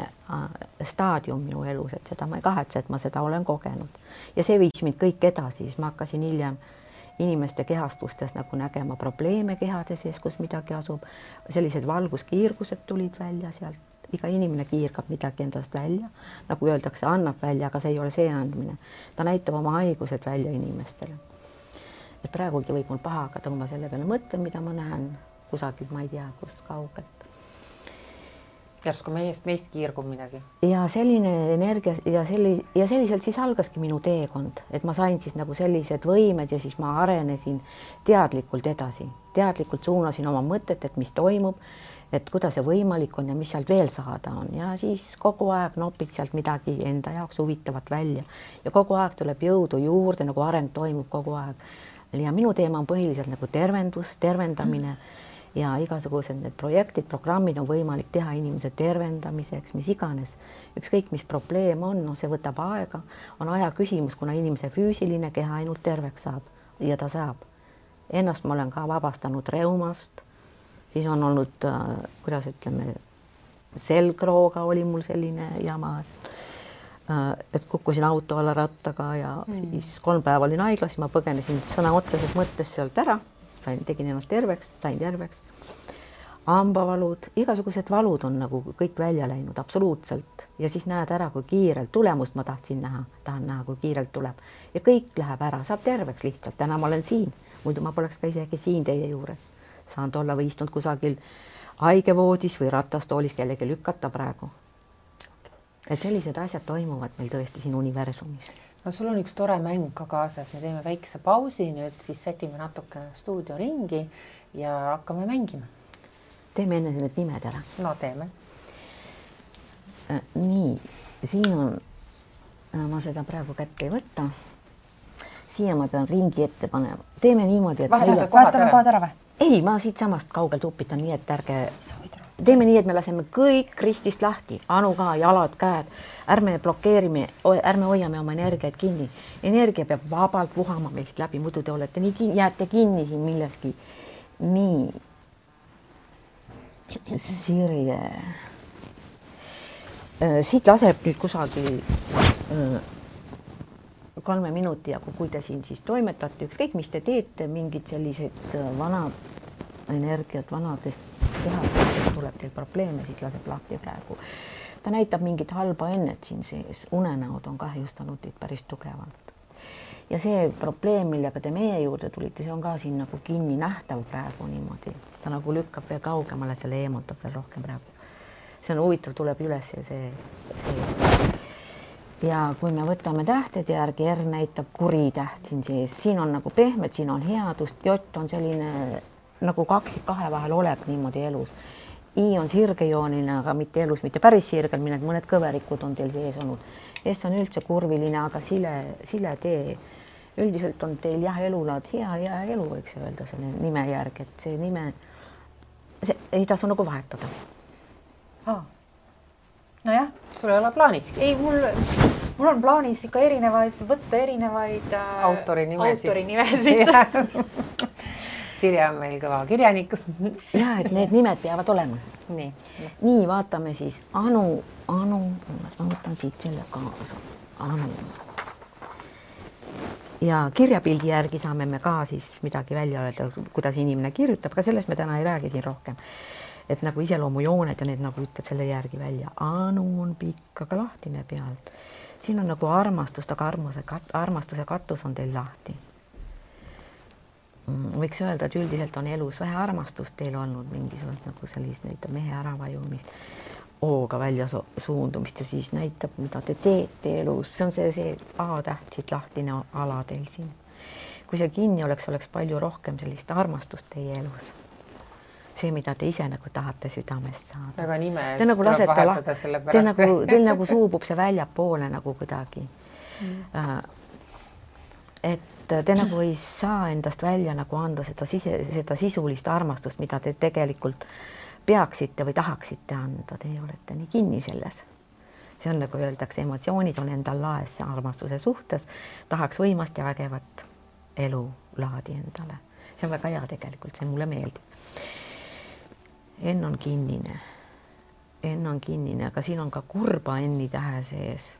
staadium minu elus, et seda ma ei kahetse, et ma seda olen kogenud. Ja see viis mind kõik edasi, siis ma hakkasin hiljem inimeste kehastustes nagu nägema probleeme kehade sees, kus midagi asub. Sellised valguskiirgused tulid välja sealt. Iga inimene kiirgab midagi endast välja. Nagu öeldakse, annab välja, aga see ei ole see andmine. Ta näitab oma haigused välja inimestele. Et praegugi võib mul paha hakata, kui ma selle peale mõtlen, mida ma näen kusagil, ma ei tea, kus kaugelt. Järsku meist kiirgub midagi. Ja selline energia ja selliselt siis algaski minu teekond, et ma sain siis nagu sellised võimed ja siis ma arenesin teadlikult edasi. Teadlikult suunasin oma mõtet, et mis toimub, et kuidas see võimalik on ja mis sealt veel saada on. Ja siis kogu aeg nopid sealt midagi enda jaoks huvitavat välja. Ja kogu aeg tuleb jõudu juurde, nagu areng toimub kogu aeg. Ja minu teema on põhiliselt nagu tervendamine. Ja igasugused need projektid, programmid on võimalik teha inimese tervendamiseks, mis iganes. Ükskõik, mis probleem on, see võtab aega. On aja küsimus, kuna inimese füüsiline keha ainult terveks saab ja ta saab. Ennast ma olen ka vabastanud reumast. Siis on olnud, kuidas ütleme, selgrooga oli mul selline jama, et kukkusin auto alla rattaga ja siis 3 päeva olin haiglas, ma põgenesin sõna otseses mõttes sealt ära. Tegin ennast terveks, sain terveks. Hambavalud, igasugused valud on nagu kõik välja läinud, absoluutselt. Ja siis näed ära, kui kiirelt tulemust ma tahan näha, kui kiirelt tuleb. Ja kõik läheb ära, saab terveks lihtsalt. Täna ma olen siin, muidu ma poleks ka isegi siin teie juures. Saan olla või istunud kusagil haigevoodis või ratastoolis kellegi lükata praegu. Et sellised asjad toimuvad meil tõesti siin universumis. No sul on üks tore mäng ka kaasas, me teeme väikse pausi, nüüd siis sätime natuke stuudio ringi ja hakkame mängima. Teeme enne need nimed ära. No teeme. Nii, siin on, ma seda praegu kätte ei võtta. Siia ma pean ringi ette panema. Teeme niimoodi, et... Vahetame kohad ära või? Ei, ma siit samast kaugelt upitan nii, et ärge... Sa võid ära. teeme nii, et me laseme kõik ristist lahti, Anu ka, jalad, käed, ärme blokeerime, ärme hoiame oma energiaid kinni. Energia peab vabalt vuhama meist läbi, muidu te olete jääte kinni siin milleski. Nii. Sirje. Siit laseb nüüd kusagil 3 minuti, aga kui te siin siis toimetate, ükskõik mis te teete, mingid sellised vanad energiat vanadest kehadest tuleb teil probleeme, siit laseb lahti praegu. Ta näitab mingit halba ennet siin sees, unenäod on kahjustanud teid päris tugevalt. Ja see probleem, millega te meie juurde tulite, see on ka siin nagu kinni nähtav praegu niimoodi. Ta nagu lükkab veel kaugemale, selle eemutab veel rohkem praegu. See on huvitav, tuleb üles ja see. Ja kui me võtame tähtede järgi, R näitab kuri täht siin sees. Siin on nagu pehmed, siin on headust, J on selline nagu kaksik kahe vahel olek niimoodi elus. I on sirgejooline, aga mitte elus, mitte päris sirgel, mõned kõverikud on teil sees olnud. S on üldse kurviline, aga sile tee. Üldiselt on teil jah elulaad hea elu, võiks öelda selle nime järgi, et see nime ei tasu nagu vahetada. Nojah. Sul ei ole plaanis? Ei, mul on plaanis ikka võtta erinevaid autorinimesid. Sirje on meil kõva kirjanik. Ja, et need nimed peavad olema. Nii, vaatame siis Anu, ma võtan siit selle kaasa. Anu. Ja kirjapildi järgi saame me ka siis midagi välja öelda, kuidas inimene kirjutab, ka sellest me täna ei räägi siin rohkem. Et nagu iseloomujooned ja need nagu ütleb selle järgi välja. Anu on pikk, aga lahtine pealt. Siin on nagu armastust, aga armastuse katus on teil lahti. Võiks öelda, et üldiselt on elus vähe armastust teil olnud mingisugust nagu sellist näitab mehe äravajumist, ooga välja suundumist ja siis näitab, mida te teete elus. See on see A-täht siit lahtine ala teil siin. Kui see kinni oleks palju rohkem sellist armastust teie elus. See, mida te ise nagu tahate südamest saada. Väga nime tuleb vahetada selle pärast. Teil nagu suubub see väljapoole nagu kuidagi. Et te nagu ei saa endast välja nagu anda seda sisulist armastust, mida te tegelikult peaksite või tahaksite anda. Te olete nii kinni selles. See on nagu öeldakse, emotsioonid on endal laes armastuse suhtes. Tahaks võimast ja vägevat elulaadi endale. See on väga hea tegelikult, see mulle meeldib. N on kinnine, aga siin on ka kurba N-i tähe sees.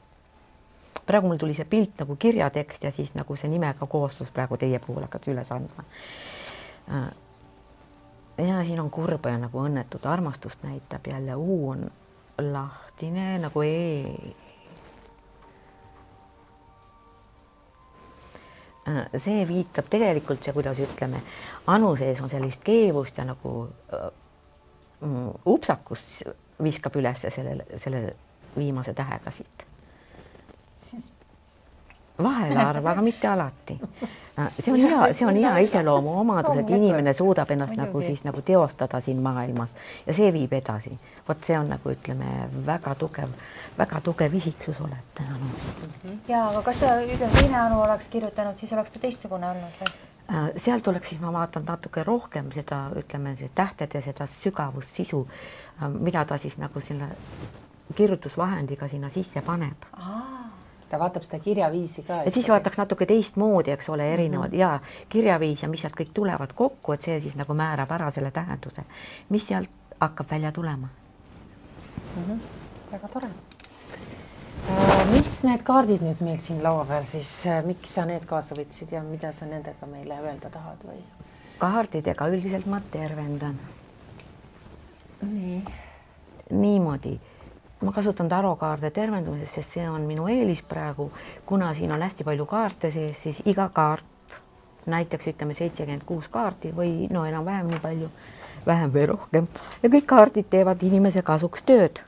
Praegu mul tuli see pilt nagu kirjatekst ja siis nagu see nimega kooslus praegu teie puhul hakkas üles andma. Ja siin on kurba ja nagu õnnetud armastust näitab jälle. U on lahtine nagu E. See viitab tegelikult see, kuidas ütleme, Anu sees on sellist keevust ja nagu upsakus viskab üles selle viimase tähega siit. Vahel arva, aga mitte alati. See on hea iseloomu omadus, et inimene suudab ennast nagu siis nagu teostada siin maailmas ja see viib edasi. Vot see on nagu ütleme väga tugev isiksus olete. Ja, aga kas teine Anu oleks kirjutanud, siis oleks ta teistsugune olnud või? Sealt oleks siis ma vaatan natuke rohkem seda, ütleme, tähtede seda sügavust, sisu, mida ta siis nagu selle kirjutusvahendiga sinna sisse paneb. Ta vaatab seda kirjaviisi ka. Et siis vaataks natuke teistmoodi, eks ole, erinevad ja kirjaviis ja mis sealt kõik tulevad kokku, et see siis nagu määrab ära selle tähenduse, mis sealt hakkab välja tulema. Väga tore. Mis need kaardid nüüd meil siin laua peal siis, miks sa need kaasa võtsid ja mida sa nendega meile öelda tahad või? Kaardidega üldiselt ma tervendan. Niimoodi. Ma kasutan tarokaarde tervendumises, sest see on minu eelis praegu, kuna siin on hästi palju kaarte sees, siis iga kaart, näiteks ütleme 76 kaarti või no enam vähem nii palju, vähem või rohkem ja kõik kaardid teevad inimese kasuks tööd.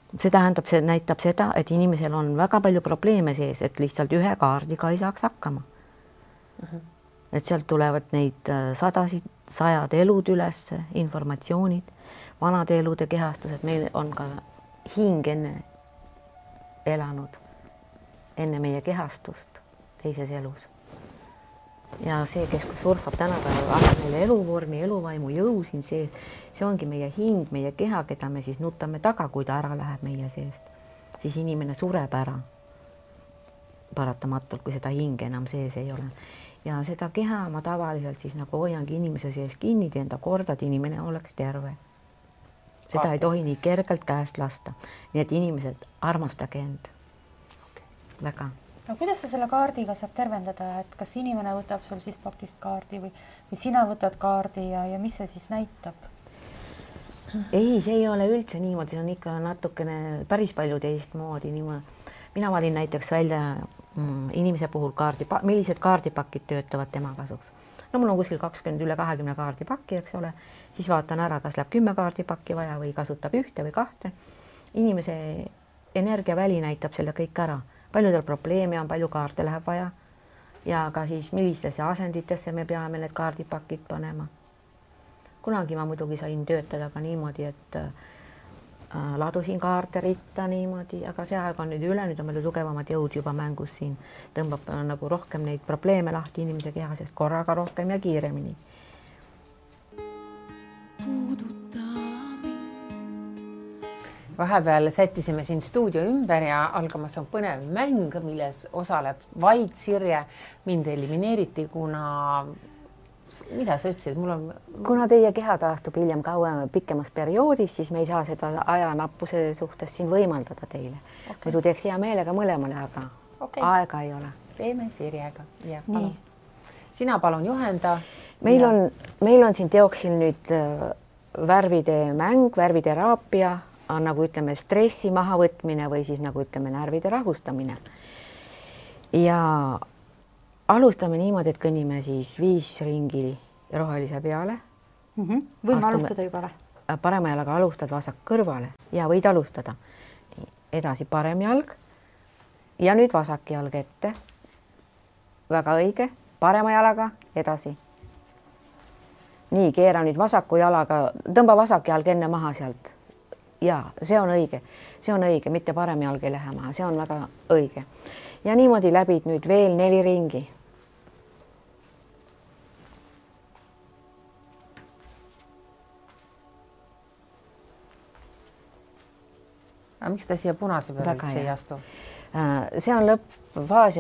See tähendab, see näitab seda, et inimesel on väga palju probleeme sees, et lihtsalt ühe kaardiga ei saaks hakkama. Et sealt tulevad neid sajad elud üles, informatsioonid, vanade elude kehastused, meil on ka hing enne elanud, enne meie kehastust teises elus. ja see, kes surfab tänapäeval, annab meile eluvormi, eluvaimu, jõu siin sees, see ongi meie hing, meie keha, keda me siis nutame taga, kui ta ära läheb meie seest, siis inimene sureb ära paratamatult, kui seda hinge enam sees ei ole. Ja seda keha ma tavaliselt siis nagu hoiangi inimese sees kinni, teen ta korda, et inimene oleks terve. Seda ei tohi nii kergelt käest lasta. Nii et inimesed, armastage end. Väga. No kuidas sa selle kaardiga saab tervendada, et kas inimene võtab sul siis pakist kaardi või sina võtad kaardi ja mis see siis näitab? Ei, see ei ole üldse niimoodi, see on ikka natukene päris palju teistmoodi. Mina valin näiteks välja inimese puhul millised kaardipakid töötavad tema kasuks. No mul on kuskil üle 20 kaardipakki, eks ole, siis vaatan ära, kas läheb 10 kaardipakki vaja või kasutab ühte või kahte. Inimese energiaväli näitab selle kõik ära. Paljudel probleeme on, palju kaarte läheb vaja ja ka siis millistesse asenditesse me peame need kaardipakid panema. Kunagi ma muidugi sain töötada ka niimoodi, et ladusin kaarte ritta niimoodi, aga see aeg on nüüd üle, nüüd on palju tugevamad jõud juba mängus siin. Tõmbab nagu rohkem neid probleeme lahti inimese kehasest korraga rohkem ja kiiremini. Vahepeal sättisime siin stuudio ümber ja algamas on põnev mäng, milles osaleb vaid Sirje. Mind elimineeriti, kuna... Mida sa ütlesid? Kuna teie keha taastub hiljem pikemas perioodis, siis me ei saa seda ajanappuse suhtes siin võimaldada teile. Muidu teeks hea meelega mõlemale, aga aega ei ole. Teeme Sirjega. Nii. Sina palun juhenda. Meil on siin teoksil nüüd värvide mäng, värviteraapia, nagu ütleme stressi mahavõtmine või siis nagu ütleme närvide rahustamine. Ja alustame niimoodi, et kõnnime siis 5 ringi rohelise peale. Võime alustada juba või? Parema jalaga alustad vasak kõrvale ja võid alustada. Edasi parem jalg ja nüüd vasak jalg ette. Väga õige. Parema jalaga edasi. Nii, keera nüüd vasaku jalaga, tõmba vasak jalg enne maha sealt. Ja, see on õige. See on õige, mitte parem jalg ei lähe maha. See on väga õige. Ja niimoodi läbid nüüd veel 4 ringi. Aga miks ta siia punase peale üldse ei astu? See on lõppfaas,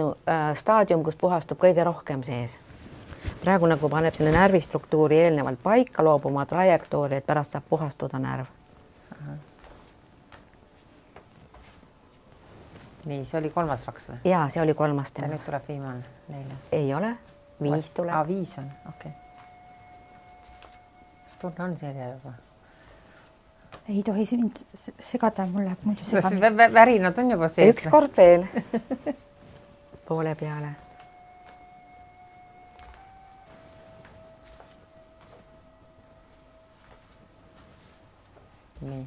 staadium, kus puhastub kõige rohkem sees. Praegu nagu paneb selle närvistruktuuri eelnevalt paika, loob oma trajektoori, et pärast saab puhastuda närv. Nii, see oli 3. vaks või? Jaa, see oli 3. Ja nüüd tuleb viimane 4. Ei ole, 5 tuleb. 5 on, okei. Tunne on Sirje juba? Ei tohi mind segada, mul läheb muidu segami. Värinad on juba sees. Üks kord veel. Poole peale. Nii.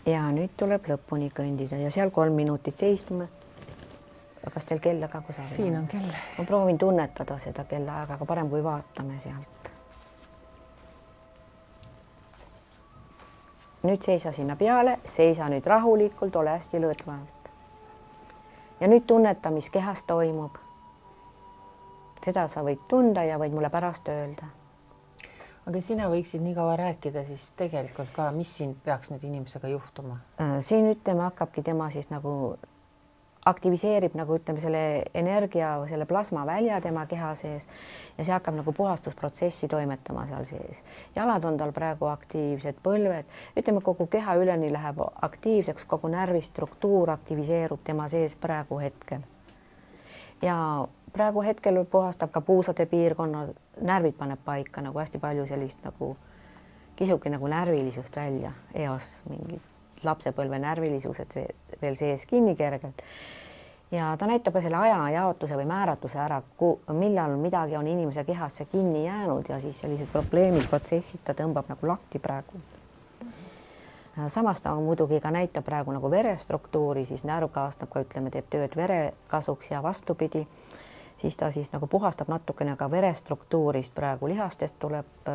Ja nüüd tuleb lõpuni kõndida ja seal 3 minutit seistume. Kas teil kella ka kusagil? Siin on kell. Ma proovin tunnetada seda kella aega, aga parem kui vaatame sealt. Nüüd seisa sinna peale, seisa nüüd rahulikult, ole hästi lõõtvalt. Ja nüüd tunneta, mis kehas toimub. Seda sa võid tunda ja võid mulle pärast öelda. Aga sina võiksid nii kaua rääkida siis tegelikult ka, mis siin peaks nüüd inimesega juhtuma? Siin ütleme, hakkabki tema siis nagu aktiviseerib nagu ütleme selle energia või selle plasma välja tema keha sees ja see hakkab nagu puhastusprotsessi toimetama seal sees. Jalad on tal praegu aktiivsed, põlved, ütleme kogu keha üleni läheb aktiivseks, kogu närvistruktuur aktiviseerub tema sees praegu hetkel. Ja praegu hetkel puhastab ka puusade piirkonna, närvid paneb paika nagu hästi palju sellist nagu kisubki nagu närvilisust välja, eos mingid lapsepõlve närvilisused veel sees kinni kergelt. Ja ta näitab ka selle aja jaotuse või määratuse ära, millal midagi on inimese kehasse kinni jäänud ja siis sellised probleemid, protsessid ta tõmbab nagu lahti praegu. Samas ta muidugi ka näitab praegu nagu verestruktuuri, siis närv kaasnab ka, ütleme, teeb tööd vere kasuks ja vastupidi. Siis ta siis nagu puhastab natukene ka verestruktuurist praegu, lihastest tuleb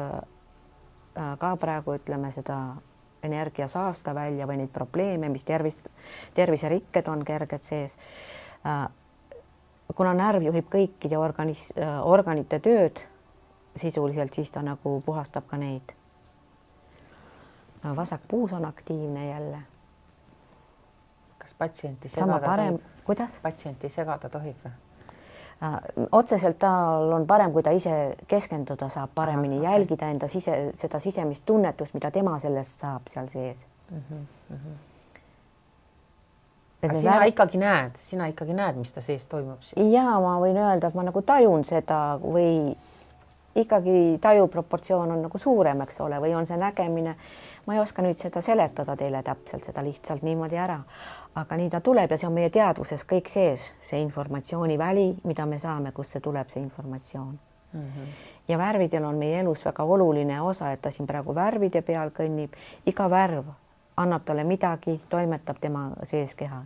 ka praegu, ütleme, seda energia saasta välja või neid probleeme, mis terviserikked on kerged sees. kuna närv juhib kõikide organite tööd sisuliselt, siis ta nagu puhastab ka neid. Vasak puus on aktiivne jälle. Kas patsienti segada tohib? Kuidas? Patsienti segada tohib või? Otseselt tal on parem, kui ta ise keskenduda saab, paremini jälgida enda seda sisemist tunnetust, mida tema sellest saab seal sees. Sina ikkagi näed, mis ta sees toimub siis? Jaa, ma võin öelda, et ma nagu tajun seda või ikkagi taju proportsioon on nagu suurem, eks ole, või on see nägemine. Ma ei oska nüüd seda seletada teile täpselt, seda lihtsalt niimoodi ära. Aga nii ta tuleb ja see on meie teadvuses kõik sees, see informatsiooniväli, mida me saame, kus see tuleb, see informatsioon. Ja värvidel on meie elus väga oluline osa, et ta siin praegu värvide peal kõnnib. Iga värv annab talle midagi, toimetab tema sees keha.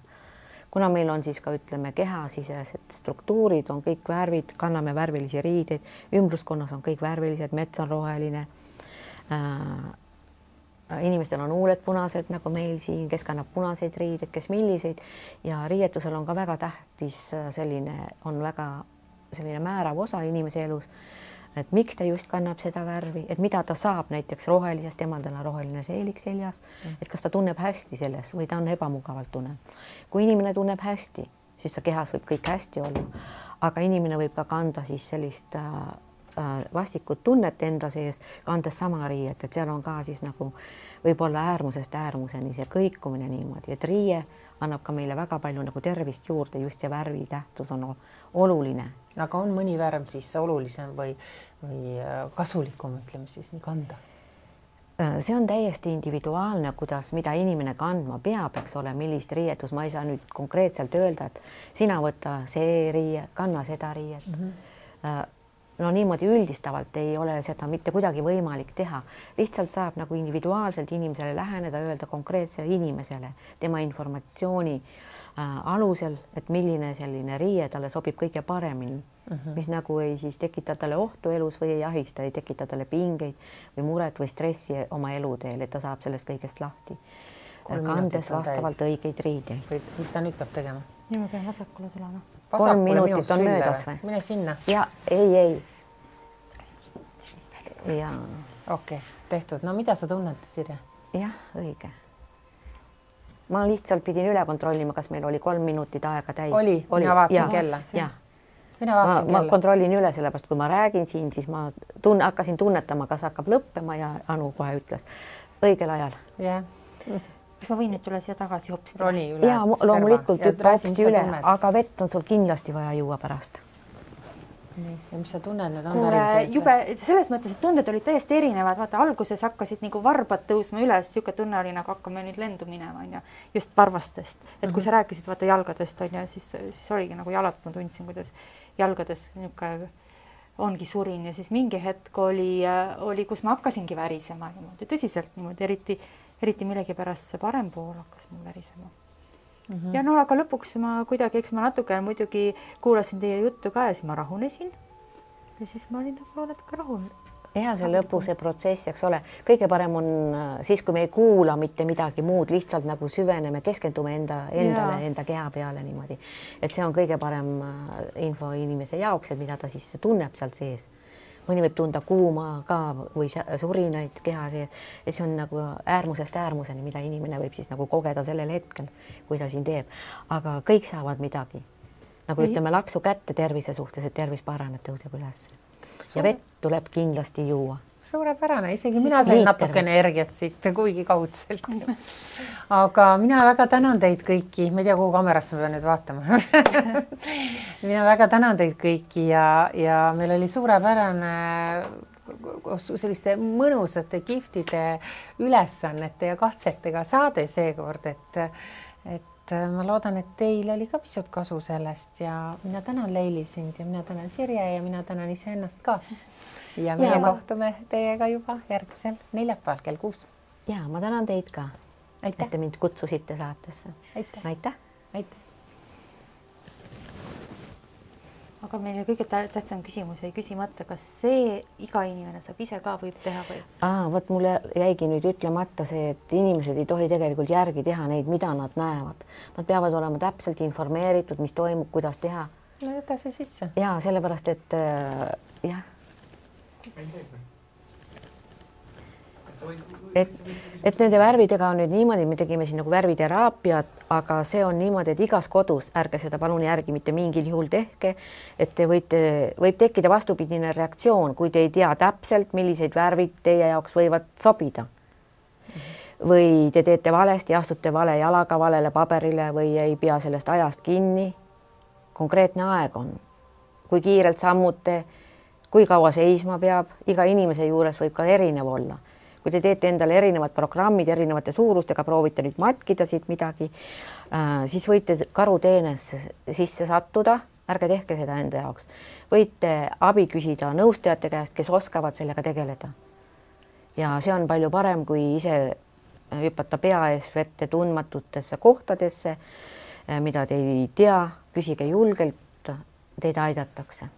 Kuna meil on siis ka, ütleme, kehasisesed struktuurid, on kõik värvid, kanname värvilisi riideid, ümbruskonnas on kõik värvilised, mets on roheline. Inimestel on huuled punased, nagu meil siin, kes kannab punaseid riideid, kes milliseid ja riietusel on ka väga tähtis selline määrav osa inimese elus, et miks ta just kannab seda värvi, et mida ta saab näiteks rohelisest, temal on roheline seelik seljas, et kas ta tunneb hästi selles või ta on ebamugavalt tunneb. Kui inimene tunneb hästi, siis ta kehas võib kõik hästi olla, aga inimene võib ka kanda siis sellist vastikut tunnet enda sees, kandes sama riiet, et seal on ka siis nagu võib-olla äärmusest äärmuseni see kõikumine niimoodi, et riie annab ka meile väga palju nagu tervist juurde, just see värvi tähtsus on oluline. Aga on mõni värv siis olulisem või kasulikum, ütleme siis nii kanda? See on täiesti individuaalne, mida inimene kandma peab, eks ole, millist riietus. Ma ei saa nüüd konkreetselt öelda, et sina võta see riie, kanna seda riiet. No niimoodi üldistavalt ei ole seda mitte kuidagi võimalik teha. Lihtsalt saab nagu individuaalselt inimesele läheneda, öelda konkreetsele inimesele tema informatsiooni alusel, et milline selline riie talle sobib kõige paremini, mis nagu ei siis tekita talle ohtu elus või ei ahista, ei tekita talle pingeid või muret või stressi oma eluteel, et ta saab sellest kõigest lahti. Kandes vastavalt õigeid riideid. Mis ta nüüd peab tegema? Nii ma pean vasakule tulema. 3 minutit on möödas või? Mine sinna. Ja, ei. Ja. Okei, tehtud. No mida sa tunned, Sirje? Jah, õige. Ma lihtsalt pidin üle kontrollima, kas meil oli 3 minutit aega täis. Oli. Mina vaatasin kella. Ma kontrollin üle, sellepärast kui ma räägin siin, siis ma hakkasin tunnetama, kas hakkab lõppema ja Anu kohe ütles õigel ajal. Jah. Kas ma võin nüüd üle siia tagasi hopsida? Roni üle. Ja loomulikult hüppa hopsti üle, aga vett on sul kindlasti vaja juua pärast. Ja mis sa tunned nüüd? Jube selles mõttes, et tunded olid täiesti erinevad. Vaata, alguses hakkasid nagu varbad tõusma üles, siuke tunne oli nagu hakkame nüüd lendu minema, on ja just varvastest. Et kui sa rääkisid vaata jalgadest, on ja siis oligi nagu jalad, ma tundsin, kuidas jalgades niuke ongi surin ja siis mingi hetk oli, kus ma hakkasingi värisema niimoodi, tõsiselt niimoodi, eriti millegipärast see parem pool hakkas mul värisema. Ja no aga lõpuks ma kuidagi, eks ma natuke muidugi kuulasin teie juttu ka ja siis ma rahunesin ja siis ma olin nagu natuke rahul. Ja see lõpu see protsess, eks ole, kõige parem on siis, kui me ei kuula mitte midagi muud, lihtsalt nagu süveneme, keskendume endale, enda keha peale niimoodi. Et see on kõige parem info inimese jaoks, et mida ta siis tunneb seal sees. Mõni võib tunda kuuma ka või surinaid keha sees. Et see on nagu äärmusest äärmuseni, mida inimene võib siis nagu kogeda sellel hetkel, kui ta siin teeb. Aga kõik saavad midagi. Nagu ütleme laksu kätte tervise suhtes, et tervis paraneb, tõuseb üles. Ja vett tuleb kindlasti juua. Suurepärane, isegi mina sain natuke energiat siit, kuigi kaudselt. Aga mina väga tänan teid kõiki. Ma ei tea, kuhu kamerasse ma pean nüüd vaatama. Mina väga tänan teid kõiki ja meil oli suurepärane selliste mõnusate giftide ülesannete ja katsetega saade seekord, et ma loodan, et teil oli ka pisut kasu sellest ja mina tänan Leili sind ja mina tänan Sirje ja mina tänan iseennast ka. Ja meie kohtume teiega juba järgmisel neljapäeval kell 6. Ja ma tänan teid ka, et te mind kutsusite saatesse. Aitäh. Aga meile kõige tähtsam küsimus jäi küsimata, kas see iga inimene saab ise ka võib teha või? Võt mulle jäigi nüüd ütlemata see, et inimesed ei tohi tegelikult järgi teha neid, mida nad näevad. Nad peavad olema täpselt informeeritud, mis toimub, kuidas teha. no jäta see sisse. Ja sellepärast, et jah. Et nende värvidega on nüüd niimoodi, me tegime siin nagu värviteraapiat, aga see on niimoodi, et igas kodus, ärge seda palun järgi mitte mingil juhul tehke, et te võib tekkida vastupidine reaktsioon, kui te ei tea täpselt, millised värvid teie jaoks võivad sobida. Või te teete valesti, astute vale jalaga valele paberile või ei pea sellest ajast kinni. Konkreetne aeg on, kui kiirelt sammute, kui kaua seisma peab, iga inimese juures võib ka erinev olla. Kui te teete endale erinevad programmid erinevate suurustega, proovite nüüd matkida siit midagi, siis võite karuteenesse sisse sattuda, ärge tehke seda enda jaoks. Võite abi küsida nõustajate käest, kes oskavad sellega tegeleda. Ja see on palju parem, kui ise hüpata pea ees vette tundmatutesse kohtadesse, mida te ei tea, küsige julgelt, teid aidatakse.